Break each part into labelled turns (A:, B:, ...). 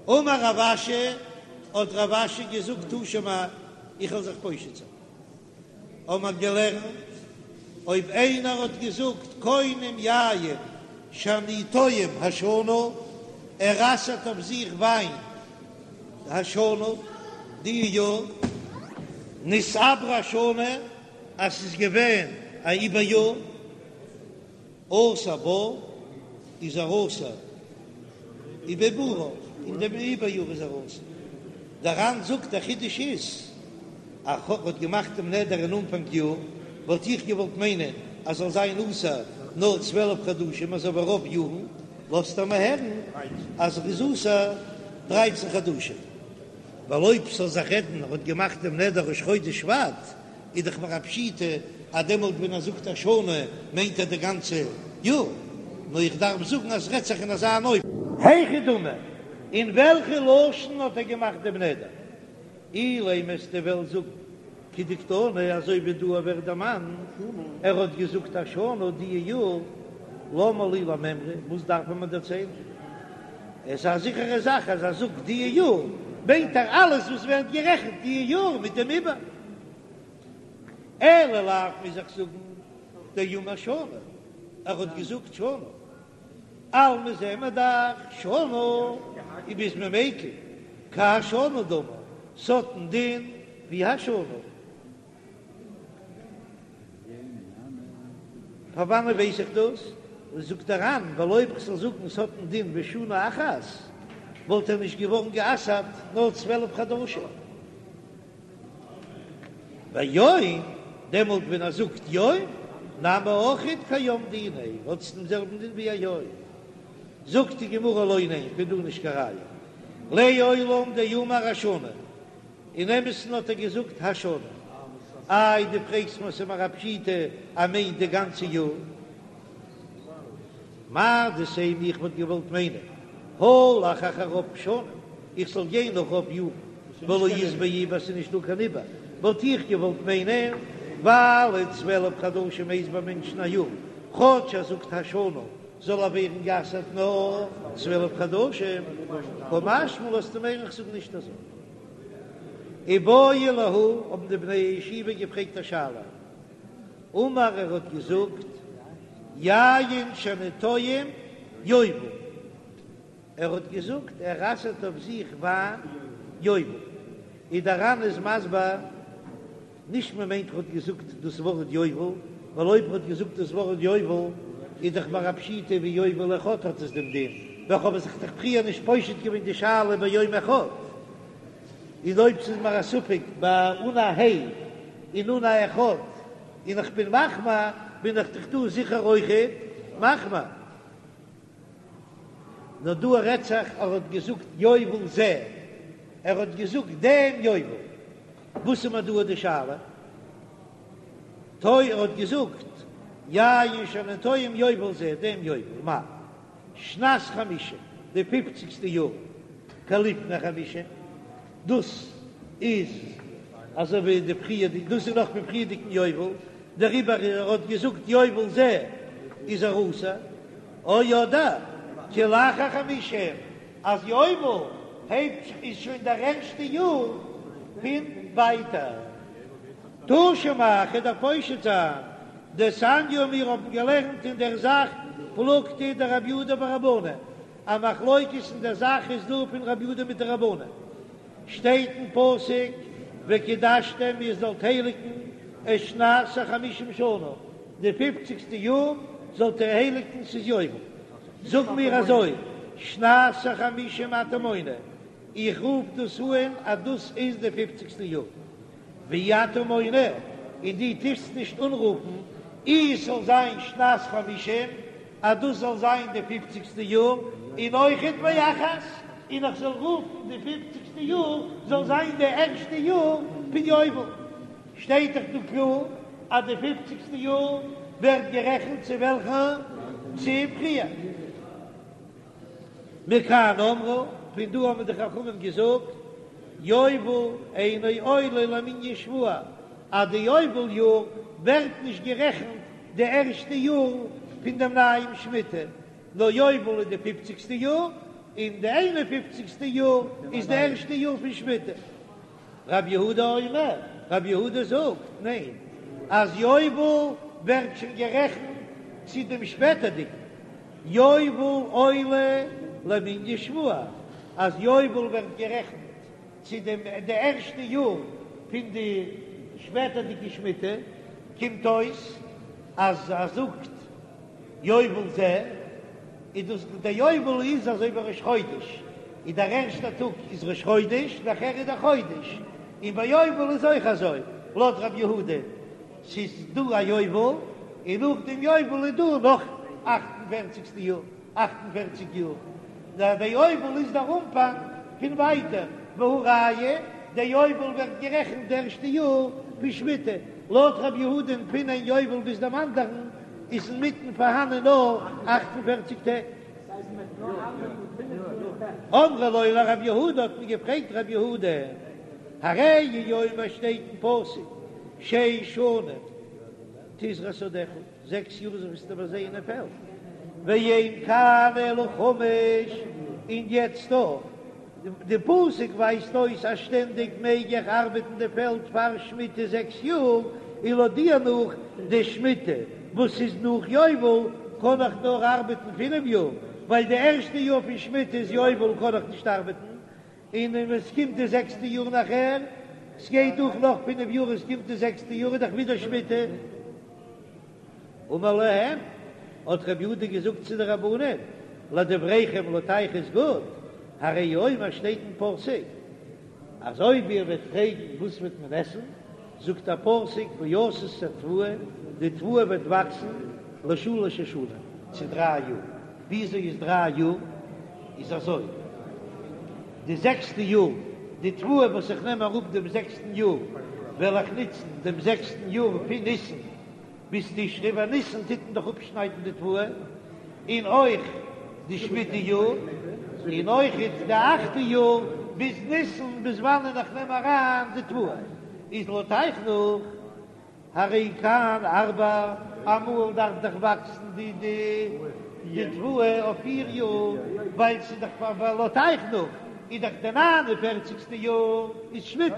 A: אמר רב אשי, האט רב אשי געזאגט תא שמע, איך וועל זיך פושט זיין. האבן מיר געלערנט, אויב איינער האט געזאגט קונם יין שאני טועם השנה, ער אסר'ט אויף זיך וויין השנה, די יאר, נתעברה השנה, אז ס'איז געווען א עיבור יאר. אסור בה איז ער אסור ובעיבורה, אין דעם עיבור יאר איז ער אסור. דער ר"ן זאגט דער חידוש איז אז ער האט געמאכט דעם נדר אין אנפאנג יאר, וואלט איך געוואלט מיינען אז זאל זיין אסור נאר 12 חדשים אזוי ווי רוב יארן, לאזט ער מיר הערן אז ער איז אסור דרייצן חדשים, ווייל אויב ס'זאל זיך רעדן ער האט געמאכט דעם נדר ראש חודש שבט, איז דאך מיר א פשיטא אז דעמאלט ווען ער זאגט השנה מיינט ער די גאנצע יאר, נאר איך דארף זאגן אז ס'רעדט זיך אין אזא אן אופן. היכי דמי, אין וועלכע לשון האט ער געמאכט דעם נדר? אילימא וועסטו וועלן זאגן כדקתני אזוי ווי דא ווערט דערמאנט, ער האט געזאגט השנה די יאר, למה לי למימרא, וואס דארף מען מיר דערציילן? עס איז א זיכערע זאך אז ער זאגט די יאר מיינט ער אלעס וואס ווערט גערעכנט די יאר מיט דעם עיבור. אלא לאו מוז איך זאגן דאמר שנה, ער האט געזאגט שנה, אלמא זעען מיר דאך שנה איז ביז מען מיקל כהשנה דמי, ס'האט א דין ווי השנה. פון וואנען ווייס איך דאס? זאגט דער ר"ן, ווייל אויב כ'זאל זאגן ס'האט א דין ווי שנה אחת, וואלט ער נישט געווארן גע'אסר'ט נאר 12 חדשים. ויום, דעמאלט ווען ער זאגט יום, נמי אויכעט כיום דיניה, האט עס דעם זעלבן דין ווי א יום. זאגט די גמרא לא, ניין, פון דא נישט קיין ראיה. לעולם דאמר השנה, אין אמת'ן האט ער געזאגט השנה. איי דו פרעגסט מיר ס'איז מיר א פשיטא אז מיינט די גאנצע יאר. מהו דתימא איך וואלט געוואלט מיינען הלך אחר רוב שנים איך זאל גיין נאך רוב יארן ולא אית ביה עיבור ס'איז נישט דא קיין עיבור וואלט איך געוואלט מיינען ווייל 12 חדשים הייסט ביי מענטשן א יאר כאטש ער זאגט השנה זאל ער ווערן גע'אסר'ט נאר 12 חדשים קא משמע לן לאזט ער מיר הערן איך זאג נישט אזוי. איבעיא להו האבן די בני הישיבה געפרעגט א שאלה אמר ער האט געזאגט יין שאני טועם יובל, ער האט געזאגט ער אסר'ט אויף זיך וויין יובל, און דער ר"ן איז מסביר נישט מען מיינט ער האט געזאגט דאס ווארט יובל, ווייל אויב ער האט געזאגט דאס ווארט יובל איז דאך מיר א פשיטא ווי יובל אחד האט עס דעם דין, וועלכע האבן זיך דאך פריער נישט פושט געווען די שאלה ביום אחד. און אויב ס'איז מיר א ספק ביי אן א ה' און אן א אחד און איך בין מחמיר, בין איך דאך דא זיכער אויכעט מחמיר. נאר דא רעדט זיך ער האט געזאגט יובל זה, ער האט געזאגט דעם יובל. וואס איז מיר דא די שאלה? טוי ער האט געזאגט יין שאני טועם יובל זה, דעם יובל, מאי? שנת חמישים, די פופציגסטע יאר, כלפני חמישים, דאס איז אזוי ווי די פריערדיגע, דאס איז נאך פון פריערדיגן יובל, דעריבער ער האט געזאגט יובל זה איז ער אסור, או אדער כלאחר חמישים, אז יובל הייבט זיך איז שוין דער ערשטע יאר פון ווייטער. תא שמע, כ'וועל דיר פושט זיין, דתניא מיר האבן געלערנט אין דער זאך פלוגתא דרבי יהודה ורבנן, א מחלוקת אין דער זאך איז דא פון רבי יהודה מיט די רבנן, שטייט אין פסוק וקדשתם איר זאלט הייליגן את שנת החמישים שנה, די פופציגסטע יאר זאלט איר הייליגן ס'איז יובל, זאגן מיר אזוי שנת החמישים אתה מונה, איך רוף דאס אן אז דאס איז די פופציגסטע יאר. ואי אתה מונה, און דו טוסט נישט אנרופן אי עס זאל זיין שנת חמישים, אז דאס זאל זיין די פופציגסטע יאר, און אויכעט ואחת, און איך זאל רופן די פופציגסטע יאר זאל זיין די ערשטע יאר פון יובל. שטייט דאך דא קלאר אז די פופציגסטע יאר ווערט גערעכנט צו וועלכע? צו פריער. מכאן אמרו, פון דא האבן די חכמים געזאגט, יובל אינו עולה למנין שבוע, אז די יובל יאר ווערט נישט גערעכנט די ערשטע יאר פון דעם נייעם שמיטה, נאר יובל איז די פופציגסטע יאר, און די איין און פופציגסטע יאר איז די ערשטע יאר פון שמיטה. רב יהודה אומר, רב יהודה זאגט, ניין, אז יובל ווערט שוין גערעכנט צו דעם שפעטערדיגן יובל עולה למנין שבוע, אז יובל ווערט גערעכנט צו דעם די ערשטע יאר פון די שפעטערדיגע שמיטה, קומט אויס אז ער זאגט יובל זה, איז דאס דער יובל איז אזוי ווי ראש חודש, איז דער ערשטער טאג איז ראש חודש, נאכער איז דער חודש, און ביי יובל איז אויך אזוי, לויט רב יהודה, ס'איז דא א יובל, און נאך דעם יובל איז דא נאך אכט און פערציגסטע יאר, 48 יאר, נאר דער יובל איז דער אנפאנג פון ווייטער, והא ראיה, דער יובל ווערט גערעכנט די ערשטע יאר פון שמיטה, לויט רב יהודה'ן פון איין יובל ביז דעם אנדערן איז אינמיטן פארהאנען נאר 48 טעג. אמרו לו לרב יהודה האט מען געפרעגט רב יהודה, הרי הוא אומר שטייט אין פסוק שש שנים תזרע שדך, זעקס יאר זאלסטו פארזייען א פעלד, ואין כאן אלא חמש, און יעצט דא, די פסוק ווייזט אויס אז שטענדיג מעג איך ארבעטן די פעלד פאר שמיטה זעקס יאר, און לויט דיר נאך די שמיטה וואס איז נאך יובל קען איך נאר ארבעטן פינף יאר, ווייל די ערשטע יאר פון שמיטה איז יובל קען איך נישט ארבעטן, און ווען עס קומט די זעקסטע יאר נאכער, ס'גייט דורך נאך פינף יאר עס קומט די זעקסטע יאר איז דאך ווידער שמיטה. אמר להם, האט רבי יהודה געזאגט צו די רבנן, לדבריכם לויט אייך איז גוט, הרי הוא אומר שטייט אין פסוק, אז אויב איר וועט פרעגן וואס וועט מען עסן, זאגט דער פסוק ועשית התבואה, די תבואה וועט וואקסן לשלש השנים, צו דריי יאר, וויאזוי איז דריי יאר? איז אזוי, די זעקסטע יאר, די תבואה וואס איך נעם אראפ דעם זעקסטן יאר, וועל איך נוצן דעם זעקסטן יאר פון ניסן ביז תשרי, ווייל ניסן טוט מען דאך אפשניידן די תבואה, און אויך די שמיטה יאר, און אויך די אכטע יאר ביז ניסן, ביז וואנען איך נעם אריין די תבואה, איז לויט אייך נאך, הרי כאן ארבע, אמאל דארף דאך וואקסן די די תבואה אויף פיר יאר, ווייל ס'איז דאך פאר לויט אייך נאך איז דאך די ניין און פערציגסטע יאר איז שמיטה,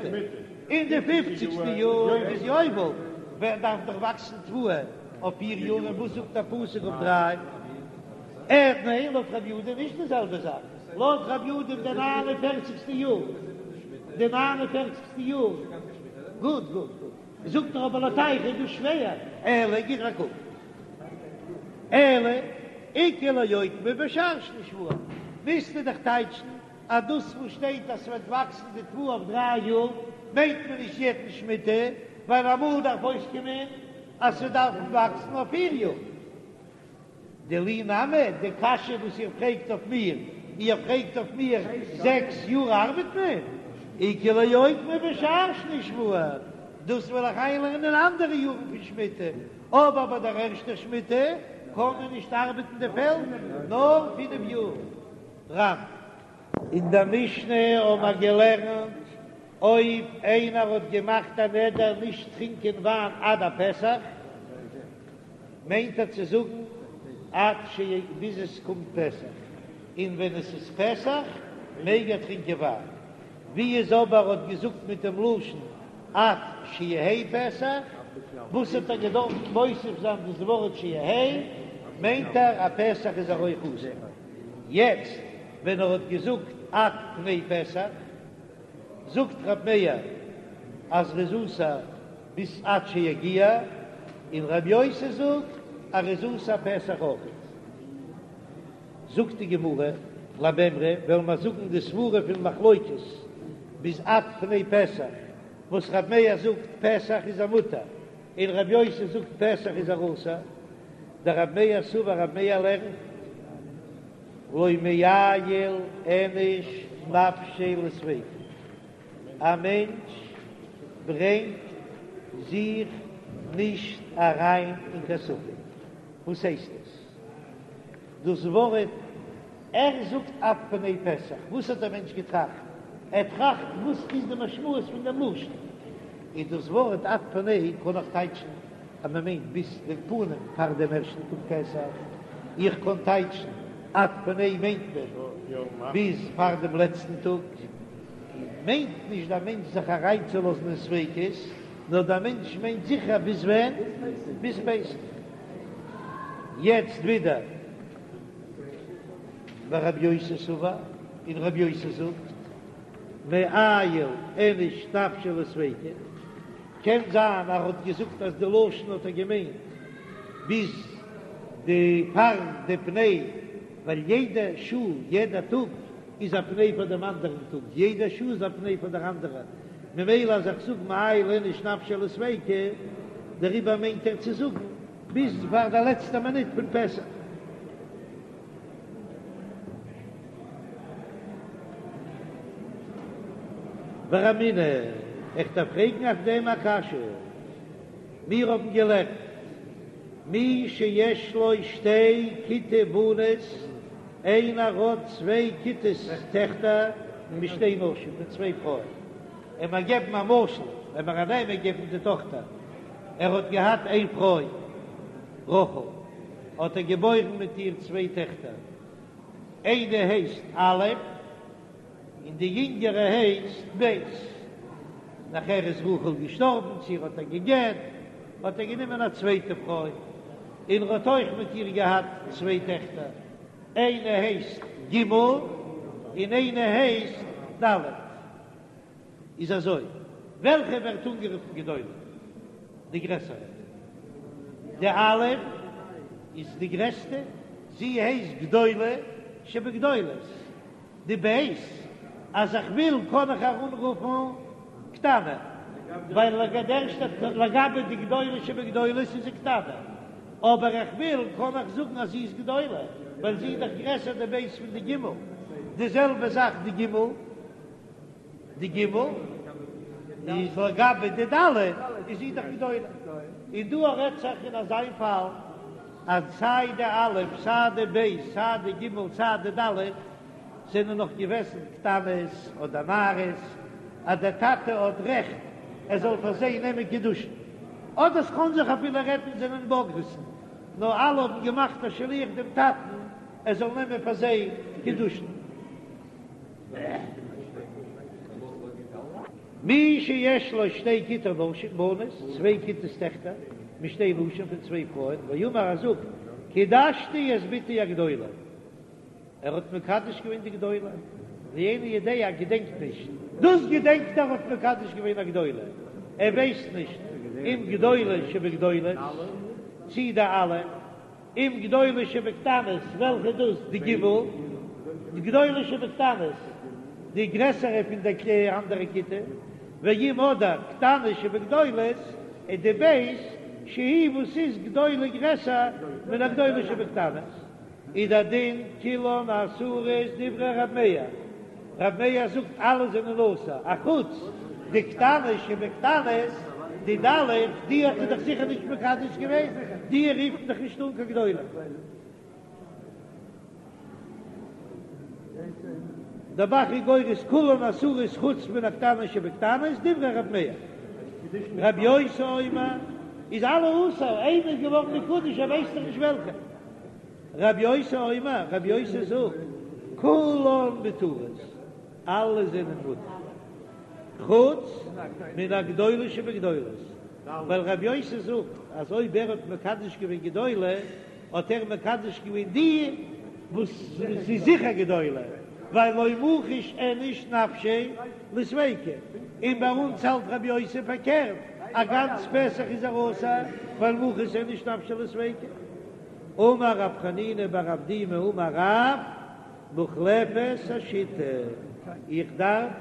A: און די פופציגסטע יאר איז יובל, ווען דארף דאך וואקסן תבואה אויף פיר יאר, און וואס זאגט א פסוק אויף דריי? עה ניין לויט רבי יהודה נישט די זעלבע זאך, לויט רבי יהודה איז די ניין און פערציגסטע יאר, די ניין און פערציגסטע יאר, גוט גוט גוט, זאגט ער אבער לויט אייך איז דאס שווער, אלא גיב א קוק, אלא איכא לאוקמי בשאר שני שבוע, מוזטו דאך טייטשן אז דאס וואס שטייט אז ס'וועט וואקסן די תבואה אויף דריי יאר מיינט מען נישט יעדן שמיטה, ווייל אמאל דארף אויסקומען אז ס'דארף וואקסן אויף פיר יאר. דילי נמי, די קשיא וואס איר פרעגט אויף מיר, איר פרעגט אויף מיר זעקס יאר ארבעט מען, איכא לאוקמי בשאר שני שבוע, דאס וועל איך איינלערנען אין אנדערע יארן פון שמיטה, אבער ביי דער ערשטער שמיטה קען מען נישט ארבעטן די פעלד נאר פינף יאר. רמ. אין דער משנה האבן מיר געלערנט, אויב איינער האט געמאכט א נדר נישט טרינקען וויין עד הפסח, מיינט ער צו זאגן עד ש ביז עס קומט פסח, און ווען עס איז פסח מעג ער טרינקען וויין. ווי איז אבער האט געזאגט מיט דעם לשון עד שיהא פסח, וואס האט ער געדארפט מוסיף זיין דאס ווארט שיהא, מיינט ער אז פסח איז ער אויך אסור. יעצט ווען ער האט געזאגט עד פני פסח, זאגט ר' מאיר אז ר'איז אסור ביז עד שיגיע, און ר' יוסי זאגט אז ר'איז אסור פסח אויך. זאגט די גמרא, למימרא, וועלן מיר זאגן די סברה פון מחלוקת ביז עד פני פסח, וואס ר' מאיר זאגט פסח איז ער מותר, און ר' יוסי זאגט פסח איז ער אסור, דרב מאיר סבר רב מאיר לערנט לא מעייל איניש נפשיה לספיקא, א מענטש ברענגט זיך נישט אריין אין קיין ספק, וואס הייסט עס? דאס ווארט ער זאגט עד פני פסח, וואס האט דער מענטש געטראכט? ער טראכט וואס איז די משמעות פון דעם לשון, איז דאס ווארט עד פני קען איך טייטשן אז מען מיינט ביז דעם פנים פאר דעם ערשטן טאג פסח, איך קען טייטשן. עד פני מיינט מען ביז פאר דעם לעצטן טאג, מיינט נישט דער מענטש זיך אריינצולאזן אין ספיקות, נאר דער מענטש מיינט זיכער ביז ווען? ביז פסח. יעצט ווידער ורבי יוסי סבר, און רבי יוסי זאגט, מעייל איניש נפשיה לספיקא, קען זיין אז ער האט געזאגט אז די לשון האט ער געמיינט ביז די פאר די פני, ווייל יעדע שעה יעדע טאג איז א פני פאר דעם אנדערן טאג, יעדע שעה איז א פני פאר דער אנדערע, ממילא אז איך זאג מעייל איניש נפשיה לספיקא, דעריבער מיינט ער צו זאגן ביז פאר די לעצטע מינוט פון פסח. ורמינהו, איך דארף פרעגן אויף דעם א קשיא. מיר האבן געלערנט, מי שיש לו שתי כיתי בנות, איינער האט צוויי כיתות טעכטער משתי נשים, פון צוויי פרויען. לאמיר געבן א משל, לאמיר א נאמען געבן די טאכטער, ער האט געהאט איין פרוי רחל, האט ער געבוירן מיט איר צוויי טעכטער, איינע הייסט א' און די יונגערע הייסט ב'. נאכער איז רחל געשטארבן, צו ער האט איר גע'גט, האט ער גענומען א צווייטע פרוי, און ער האט אויך מיט איר געהאט צוויי טעכטער, איינע הייסט ג' און איינע הייסט ד'. איז אזוי, וועלכע ווערט אנגערופן גדולה? די גרעסערע. די א' איז די גרעסטע, זי הייסט גדולה שבגדולות. די ב', אז איך וויל קען איך איר אנרופן קטנה, ווייל לגבי די גדולה שבגדולות איז זי קטנה, אבער איך וויל קען איך זאגן אז זי איז גדולה, ווייל זי איז דאך גרעסער די ב' פון די ג'. די זעלבע זאך די ג'. די ג' איז לגבי די ד' איז זי דאך גדולה, און דא רעדט זיך אין אזיין פאל אז סיי די א' סיי די ב' סיי די ג' סיי די ד' זענען נאך געוועזן קטנות אדער נערות אז דער טאטע האט רעכט ער זאל פאר זיי נעמען קידושין, אדער ס'קען זיך אפילו רעדן זענען בוגרת'ן נאר אלע האבן געמאכט א שליח דעם טאטן ער זאל נעמען פאר זיי קידושין. מי שיש לו שתי כיתי נשים, בנות, צוויי כיתות טעכטער, משתי נשים פון צוויי פרויען, ואמר ער זאגט, קידשתי את בתי הגדולה, ער האט מקדש געווען די גדולה, ואינו יודע ער געדענקט נישט, דאס געדענקט ער האט מקדש געווען א גדולה, ער ווייסט נישט אם גדולה שבגדולות, צי די א'. אם גדולה שבקטנות, וועלכע איז דאס? די ג', די גדולה שבקטנות, די גרעסערע פון די אנדערע כיתה, ואם אדער קטנה שבגדולות, איז די ב' שהיא וואס איז גדולה גרעסער מן הגדולה שבקטנות, איז דער דין כולן אסורות דברי ר' מאיר. ר' מאיר זאגט אלע זענען אסור, אחוץ די קטנה שבקטנות, די ד', די האט ער דאך זיכער נישט מקדש געווען, די רופט מען דאך נישט אן קיין גדולה. דער ב"ח איז גורס כולן אסורות חוץ מן הקטנה שבקטנות, דברי ר' מאיר. ר' יוסי אומר איז אלע אסור, איינער איז געווארן מקודש ער ווייסט דאך נישט וועלכע. רבי יוסי אומר, רבי יוסי זאגט, כולן מותרות, אלע זענען מותר, חוץ מן הגדולה שבגדולות, ווייל רבי יוסי זאגט אז אויב ער האט מקדש געווען גדולה, האט ער מקדש געווען די וואס איז זיכער גדולה, ווייל לא מחית איניש נפשיה לספיקא, און ביי אונז האלט רבי יוסי פארקערט, א גאנץ פסח איז ער אסור, ווייל מחית איניש נפשיה לספיקא. אמר רב חנינא בר אבדימי אמר רב, מוחלפת השיטה, איך דארף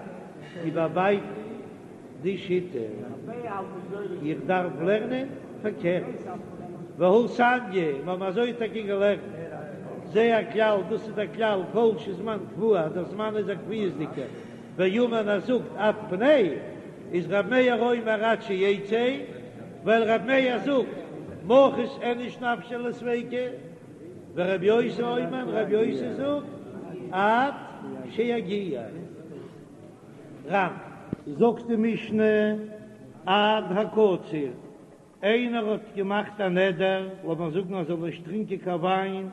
A: איבערבייטן די שיטה, איך דארף לערנען פארקערט, והא תניא, מיר האבן אזוי טאקע געלערנט, זה הכלל, דאס איז דער כלל, כל שזמן קבוע, אז דער זמן איז א קביעות'דיגער, ואמר ער זאגט עד פני, איז ר' מאיר אומר עד שיצא, ווייל ר' מאיר זאגט מחית איניש נפשיה לספיקא, ור' יוסי אומר, ר' יוסי זאגט עד שיגיע. רמ. זאגט די משנה עד הקציר, איינער האט געמאכט א נדר, לאמיר זאגן אז ער זאל נישט טרינקען קיין וויין.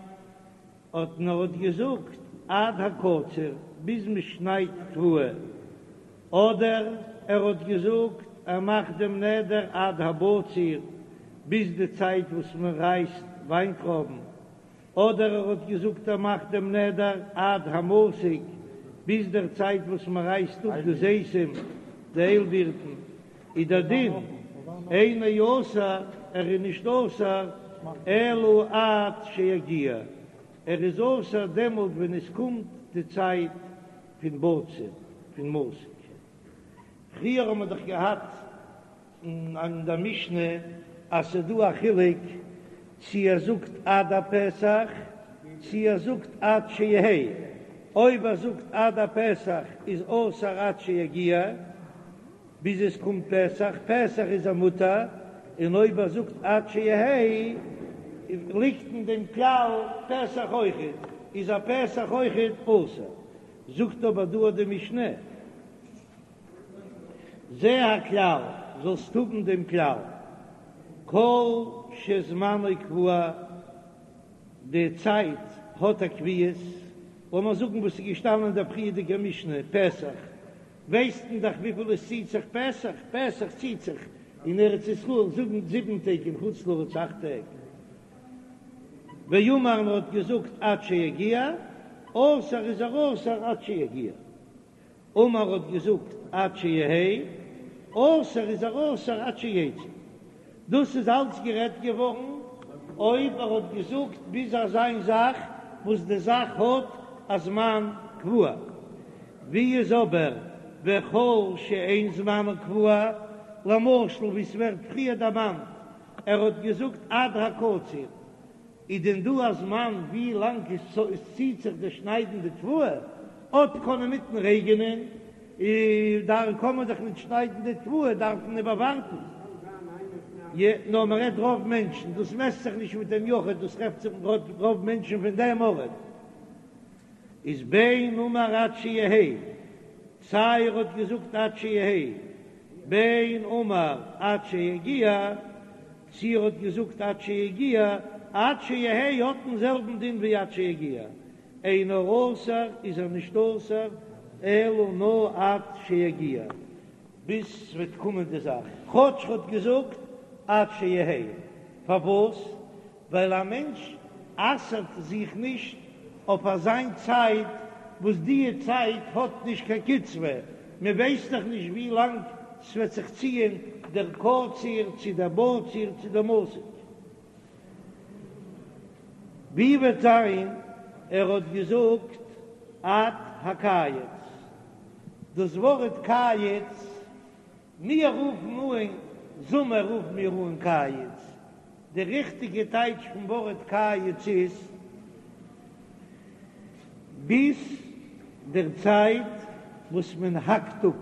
A: האט נאר האט געזאגט עד הקציר ביז מען שניידט תבואה, אדער ער האט געזאגט ער מאכט דעם נדר עד הבציר ביז די צייט וואס מען רייסט וויינטרויבן, אדער ער האט געזאגט ער מאכט דעם נדר עד המסיק ביז דער צייט וואס מען רייסט אפ די זיתים, די איילבירטן, איז דער דין אינו אסור, ער איז נישט אסור אלא עד שיגיע, ער איז אסור דעמאלט ווען עס קומט די צייט פון בציר, פון מסיק. פריער האט מען דאך געהאט אין דער משנה אז ס'איז דא א חילוק צי ער זאגט עד הפסח צי ער זאגט עד שיהא, אויב ער זאגט עד הפסח איז אסור עד שיגיע ביז עס קומט פסח, פסח איז ער מותר, און אויב ער זאגט עד שיהא ליגט אין דעם כלל פסח אויכעט, איז א פסח אויכעט אסור. זאגט אבער דא די משנה. זה הכלל, זאלסט האבן דעם כלל, כל שזמנו קבוע, די צייט האט א קביעות, לאמיר זאגן וואס איז געשטאנען אין דער פריערדיגער משנה, פסח, ווייסט מען דאך וויפיל עס ציט זיך פסח, פסח ציט זיך אין ארץ ישראל זאגן זיבן טעג אין חוץ לארץ אכט טעג, ואמר און האט געזאגט עד שיגיע, אסור איז ער אסור עד שיגיע. אמר האט געזאגט עד שיהא, אסור איז ער אסור עד שיצא. דאס איז אלץ גערעדט געווארן אויב ער האט געזאגט ביז אזיין זאך וואס די זאך האט א זמן קבוע. ווי איז אבער וכל שאין זמנו קבוע, למשל ווי ס'ווערט פריער דערמאנט ער האט געזאגט עד הקציר, איז דען דא א זמן ווי לאנג עס ציט זיך די שניידן די תבואה? אט קען אינמיטן רעגענען, דאן קען מען דאך ניט שניידן די תבואה, דארף מען איבערווארטן. יע, נאר מען רעדט רוב מענטשן, דאס מעסט זיך נישט מיט דעם יחיד, דאס רעדט זיך רוב מענטשן פון דעם ארט. איז בין אמר עד שיהא, סיי ער האט געזאגט עד שיהא, בין אמר עד שיגיע, צי ער האט געזאגט עד שיגיע, עד שיהא האט דעם זעלבן דין ווי עד שיגיע, אינו אסור איז ער נישט אסור אלא נאר עד שיגיע, ביז ס'וועט קומען די זאך, כאטש ער האט געזאגט עד שיהא, פארוואס? ווייל א מענטש אסר'ט זיך נישט אויף אזיין צייט וואס דיע צייט האט נישט קיין קצבה, מען ווייסט דאך נישט ווי לאנג ס'וועט זיך ציען דער קציר צו דער בציר צו דער מסיק. ווי וועט זיין ער האט געזאגט עד הקיץ, דאס ווארט קיץ מיר רופן אן זומער רופן מיר אן קיץ, די ריכטיגע טייטש פון ווארט קיץ איז ביז דער צייט וואס מען האקט אפ,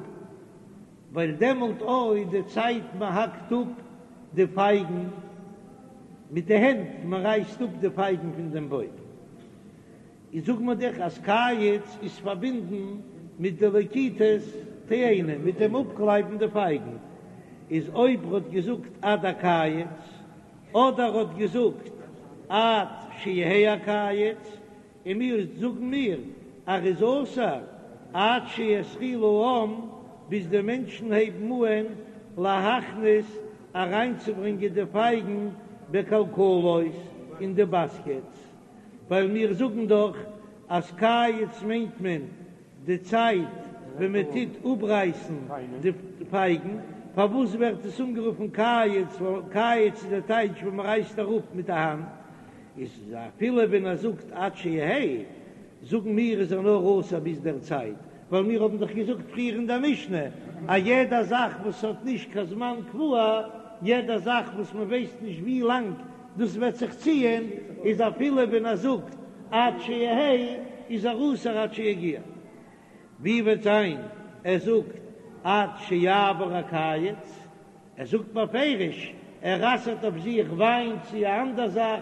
A: ווייל דעמאלט אויך די צייט מען האקט אפ די פייגן מיט די הענט, מען רייסט אפ די פייגן פון דעם בוים. איז זאגט מען דאך אז קיץ איז פארבינדן מיט די לקיטת תאנה, מיט דעם אפקלייבן די פייגן, איז אויב ר'האט געזאגט עד הקיץ, אדער ר'האט געזאגט עד שיהא הקיץ, און מיר זאגן מיר אז ר'איז אסור עד שיתחילו העם, ביז די מענטשן הייבן אהן להכניס אריינצוברענגען די פייגן בכלכלות אין די באסקעטס. ווייל מיר זאגן דאך אז קיץ מיינט מען די צייט ווען מען טוט אפרייסן די פייגן, פארוואס ווערט עס אנגערופן קיץ, ווייל קיץ איז די טייטש ווען מען רייסט אראפ מיט די האנט, איז אפילו ווען ער זאגט עד שיהא, זאגן מיר איז ער נאר אסור ביז דער צייט, ווייל מיר האבן דאך געזאגט פריער אין דער משנה אז יעדע זאך וואס האט נישט קיין זמן קבוע, יעדע זאך וואס מען ווייסט נישט ווי לאנג דאס וועט זיך ציען, איז אפילו ווען ער זאגט עד שיהא איז ער אסור עד שיגיע. ווי וועט זיין ער זאגט עד שיעבור הקיץ, ער זאגט בפירוש ער אסר'ט אויף זיך וויין צו א אנדער זאך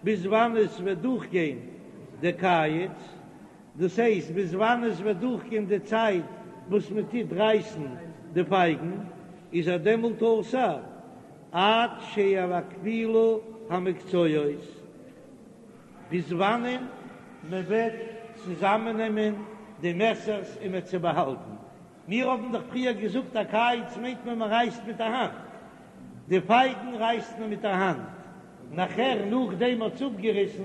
A: ביז וואנען עס וועט דורכגיין די קיץ, דאס הייסט ביז וואנען עס וועט דורכגיין די צייט וואס מען טוט רייסן די פייגן, איז ער דעמאלט אסור עד שיקפילו המקצועות, ביז וואנען. מען וועט צוזאמענעמען די מעסערס און מ'עט זיי באהאלטן. מיר האבן דאך פריער געזאגט הקיץ מיינט מען מען רייסט מיט א האנט, די פייגן רייסט מען מיט א האנט, נאכער נאכדעם מ'האט עס אפגעריסן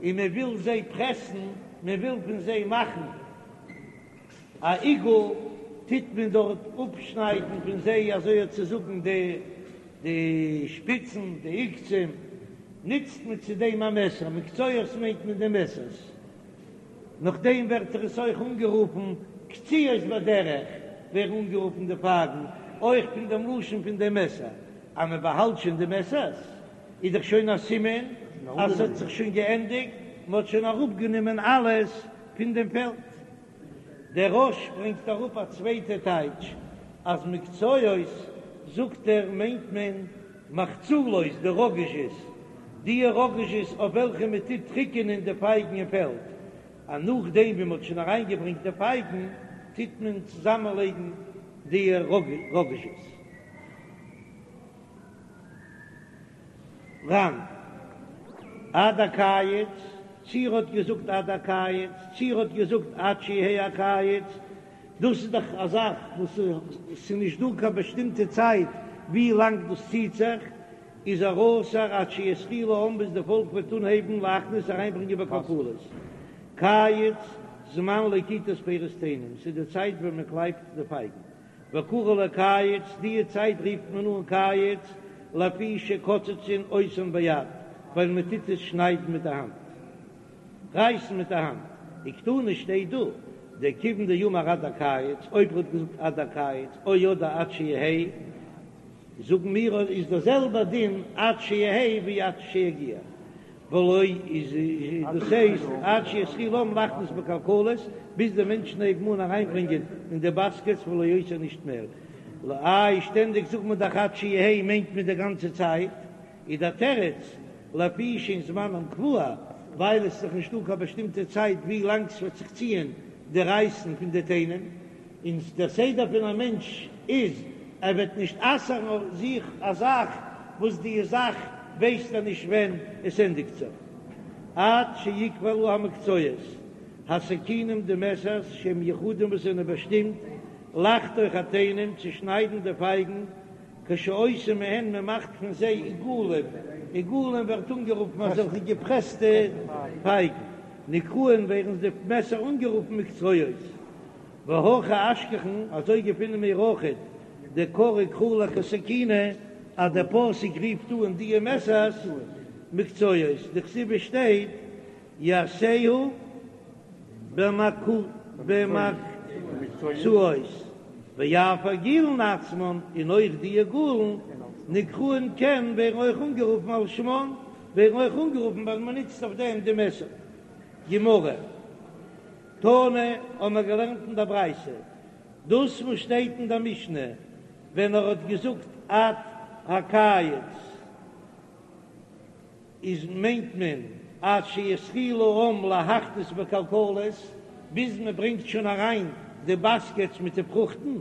A: און מען וויל זיי פרעסן, מען וויל פון זיי מאכן א עיגול, טוט מען דארט אפשניידן פון זיי אזוי צו זאגן די די שפיצן, די עוקצים, נוצט מען צו דעם א מעסער, מקצועות מיינט מען די מעסערס. נאכדעם ווערט עס אויך אנגערופן קציעות בדרך, ווערן אנגערופן די פייגן אויך פון דעם לשון פון דעם מעסער, אז מען באהאלט שוין די מעסערס איז דאך שוין א סימן אז ס'האט זיך שוין געענדיגט, מען האט שוין אראפגענומען אלעס פון דעם פעלד. דער רא"ש ברענגט אראפ א צווייטע טייטש, אז מקצועות זאגט ער מיינט מען מחצלות, די ראגאזשעס, די ראגאזשעס אויף וועלכע מען טוט טריקענען די פייגן אין פעלד, אז נאכדעם ווי מען האט שוין אריינגעברענגט די פייגן טוט מען צוזאמענלייגן די ראגאזשעס. ר"ן. עד הקיץ, צי ער האט געזאגט עד הקיץ, צי ער האט געזאגט עד שיהא הקיץ, דאס איז דאך א זאך וואס ס'איז נישט דא קיין באשטימטע צייט ווי לאנג דאס ציט זיך, איז ער אסור עד שיתחילו העם ביז די פאלק וועט אנהייבן להכניס אריינברענגען בכלכלות. קיץ, זמן לקיטת פירות תאנים, ס'איז די צייט ווען מען קלייבט די פייגן. וקרו ליה קיץ, די צייט רופט מען אן קיץ, לפי שקוצצין אותן ביד, ווייל מען טוט עס שניידן מיט די האנט. רייסן מיט די האנט. וקתני שטייט דא, דכיון דאמר עד הקיץ, אויב ער האט געזאגט עד הקיץ, או אדער עד שיהא, זאגן מיר איז דער זעלבער דין עד שיהא ווי עד שיגיע, ולא איז דאס הייסט עד שיתחילו העם להכניס בכלכלות, ביז די מענטשן הייבן אן אריינברענגען אין די באסקעטס ולא יותר נישט מער. איי שטענדיג זאגט מען דאך עד שיהא מיינט מען די גאנצע צייט, איז דער תירוץ, לפי שאין זמנם קבוע, ווייל עס איז דאך נישטא קיין באשטימטע צייט ווי לאנג ס'וועט זיך ציען די רייסן פון די תאנים, און דער סדר פון א מענטש איז ער וועט נישט אסר'ן אויף זיך א זאך וואס די זאך ווייסט ער נישט ווען עס ענדיגט זיך, עד שיקבלו המקצועות, הסכינים די מעסערס שהם מיוחדים וואס זענען באשטימט לחתוך התאנים צו שניידן די פייגן, כשעושים מהן מען מאכט פון זיי עיגולים, עיגולים ווערט אנגערופן אזעלכע געפרעסטע פייגן, נקראין ווערן די מעסער אנגערופן מקצועות, והכי אשכחן אזוי געפינען מיר אויכעט דקרי קרא לכסכינא אז דער פסוק רופט אן דיע מעסערס מקצועות, דכתיב עס שטייט יעשהו במקצועות, ואף עגולין עצמן, און אויך די עגולין, נקראין כן ווערן אויך אנגערופן על שמן, ווערן אויך אנגערופן ווייל מען נוצט אויף דעם די מעסער. גמרא, תנא, האבן מיר געלערנט אין דער ברייתא, דאס וואס שטייט אין דער משנה ווען ער האט געזאגט עד הקיץ, איז מיינט מען עד שיתחילו העם להכניס בכלכלות, ביז מען ברענגט שוין אריין די באסקעטס מיט די פרוכטן,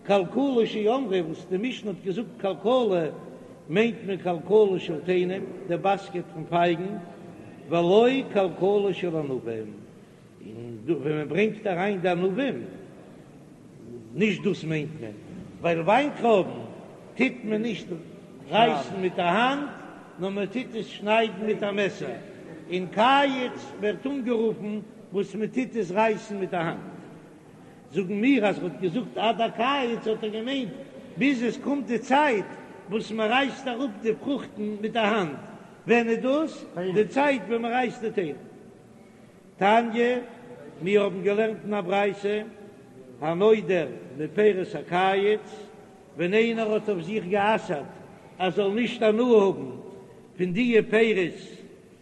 A: כלכלה שאמרו וואס די משנה האט געזאגט כלכלה מיינט מען כלכלה של תאנים, די באסקעט פון פייגן, ולא כלכלה של ענבים, און ווען מען ברענגט אריין די ענבים, נישט דאס מיינט מען, ווייל וויינטרויבן טוט מען נישט רייסן מיט א האנט, נאר מען טוט עס שניידן מיט א מעסער, און קיץ ווערט אנגערופן וואס מען טוט עס רייסן מיט א האנט. זאגן מיר אז ער האט געזאגט עד הקיץ האט ער געמיינט ביז עס קומט די צייט וואס מען רייסט אראפ די פרוכטן מיט א האנט, ווען איז דאס? די צייט ווען מען רייסט די תאנים. תניא, מיר האבן געלערנט אין א ברייתא, הנודר מפירות הקיץ, ווען איינער האט אויף זיך גע'אסר'ט ער זאל נישט הנאה האבן פון דיע פירות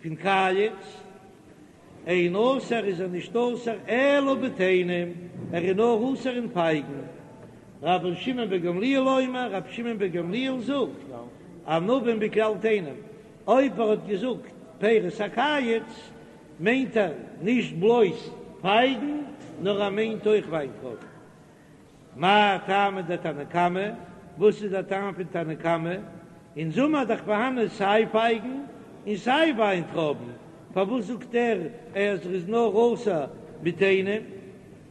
A: פון קיץ, אין אסור איז ער נישט אסור אלא בתאנים, ער איז נאר אסור אין פייגן. רבן שמעון בן גמליאל אומר, רבי שמעון בן גמליאל זאגט, ענבים בכלל תאנים, אויב ער האט געזאגט פירות הקיץ, מיינט ער נישט בלויז פייגן, נאר ער מיינט אויך וויינטרויבן. מאי טעמא דתנא קמא, וואס איז דער טעם פון תנא קמא? אין זומער איז דאך פארהאנען סיי פייגן און סיי וויינטרויבן, פארוואס זאגט ער אז ער איז נאר אסור מיט תאנים?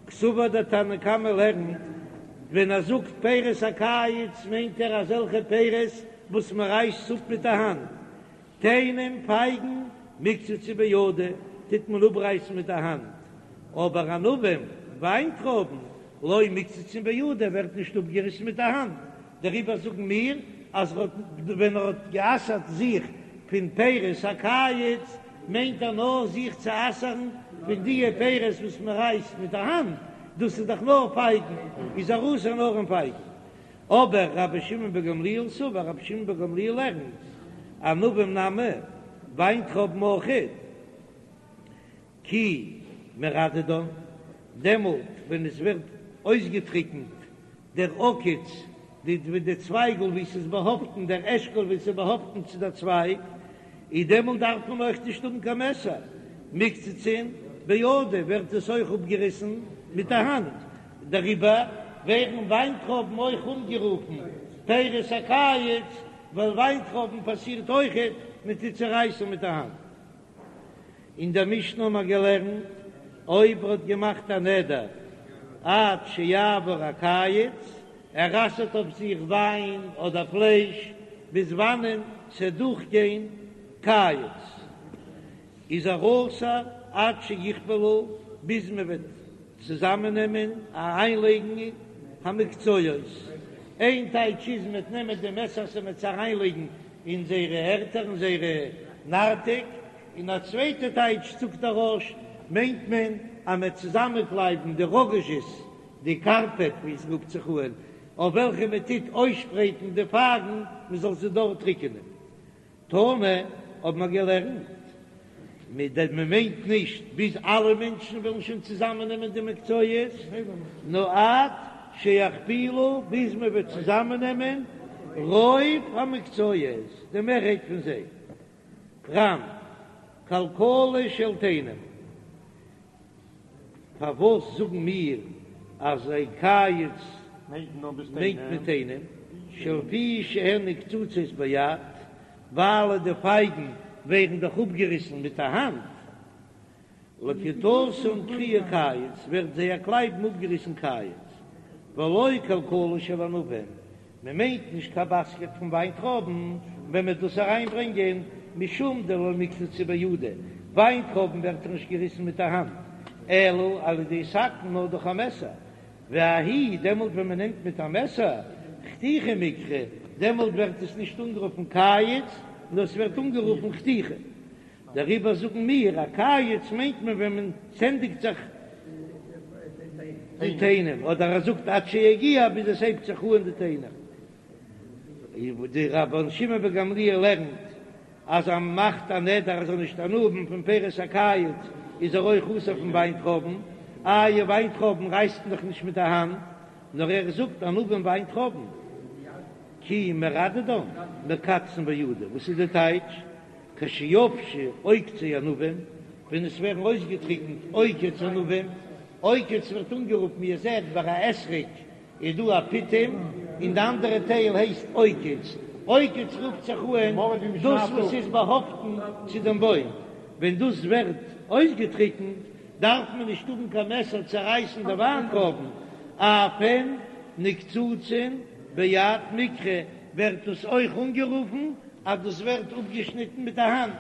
A: קסבר דער תנא קמא לערנט, ווען ער זאגט פירות הקיץ מיינט ער אזעלכע פירות וואס מען רייסט אפ מיט די האנט, תאנים פייגן מיקצצן בידא טוט מען אפרייסן מיט די האנט, אבער ענבים וויינטרויבן לא מיקצצן בידא ווערט נישט אפגעריסן מיט די האנט, דעריבער זאגן מיר אז ער האט ווען ער האט גע'אסר'ט זיך פון פירות הקיץ מיינט ער נאר זיך צו אסר'ן פון דיע פירות וואס מען רייסט מיט די האנט, דאס איז דאך נאר פייגן, איז ער אסור נאר אין פייגן. אבער רבי שמעון בן גמליאל סבר, רבי שמעון בן גמליאל לערנט, ענבים נמי, וויינטרויבן אויכעט, כי מרדדן, דעמאלט ווען עס ווערט אויסגעטריקנט דער עוקץ, די די צווייגל וואו ס'איז באהאפטן, דער אשכול וואו ס'איז באהאפטן צו דער צווייג, איז דעמאלט דארף מען אויך נישט האבן קיין מעסער, מיקצצן בידא ווערט עס אויך אפגעריסן מיט די האנט, דעריבער ווערן וויינטרויבן אויך אנגערופן פירות הקיץ, ווייל וויינטרויבן פאסירט אויכעט מען טוט צערייסן מיט די האנט. אין דער משנה האבן מיר געלערנט, אויב ער האט געמאכט א נדר עד שיעבור הקיץ, ער אסר'ט אויף זיך וויין אדער פלייש ביז וואנען ס'עט דורכגיין קיץ, איז ער אסור עד שיכפלו, ביז מען וועט צוזאמענעמען אריינלייגן המקצועות, איין טייטש איז מען וועט נעמען די מעסערס און מען וועט עס אריינלייגן אין זייערע ערטער אין זייערע נרתיק, און א צווייטע טייטש זאגט דער רא"ש מיינט מען אז מען וועט צוזאמענקלייבן די ראגאזשעס, די קארפעט ווי עס רופט זיך אן, אויף וועלכע מען טוט אויסשפרייטן די פייגן מען זאל זיי דארט טריקענען. תנא האבן מיר געלערנט, מען מיינט נישט ביז אלע מענטשן וועלן שוין צוזאמען נעמען די מקצועות, נאר עד שיכפילו ביז מען וועט צוזאמען נעמען רוב המקצועות, די מערהייט פון זיי. ר"ן, כלכלה של תאנים. פארוואס זאגן מיר אז קיץ מיינט מען תאנים, שלפי שהן נקצצות ביד, ווייל די פייגן ווערן דאך אפגעריסן מיט א האנט, לקיטתן קרייה קיץ, ווערט זייער קלייבן אפגעריסן קיץ, ולא כלכלה של ענבים, מען מיינט נישט קיין באסקעט פון וויינטרויבן ווען מען דאס אריינברענגען, משום דלא מיקצצי בידא, וויינטרויבן ווערט דאך נישט געריסן מיט א האנט, אלא על ידי סכין נאר דורך א מעסער, וההיא דעמאלט ווען מען נעמט מיט א מעסער, חתיכה מיקרי, דעמאלט ווערט עס נישט אנגערופן קיץ, נאר עס ווערט אנגערופן חתיכה. דעריבער זאגן מיר א קיץ מיינט מען ווען מען ס'ענדיגט זיך די תאנים, אדער ער זאגט עד שיגיע ביז עס הייבט זיך אן די תאנים. די רבן שמעון בן גמליאל לערנט אז אז מ'מאכט א נדר ער זאל נישט הנאה האבן פון פירות הקיץ איז ער אויך אסור פון וויינטרויבן, איי וויינטרויבן רייסט מען דאך נישט מיט די האנט, נאר ער זאגט ענבים וויינטרויבן כי מרדדן מקצצן בידא, וואס איז די טייטש? כשיבשו עוקצי ענבים, ווען עס ווערן אויסגעטריקנט עוקץ ענבים, עוקץ ווערט אנגערופן ווי איר זעט ביי א אתרוג איז דא א פיטום און די אנדערע טייל הייסט עוקץ, עוקץ רופט זיך אן דאס וואס איז באהאפטן צו דעם בוים, ווען דאס ווערט אויסגעטריקנט דארף מען נישט האבן קיין מעסער צו רייסן די וויינטרויבן, אף הן נקצצין ביד מיקרי ווערט דאס אויך אנגערופן אז דאס ווערט אפגעשניטן מיט א האנט.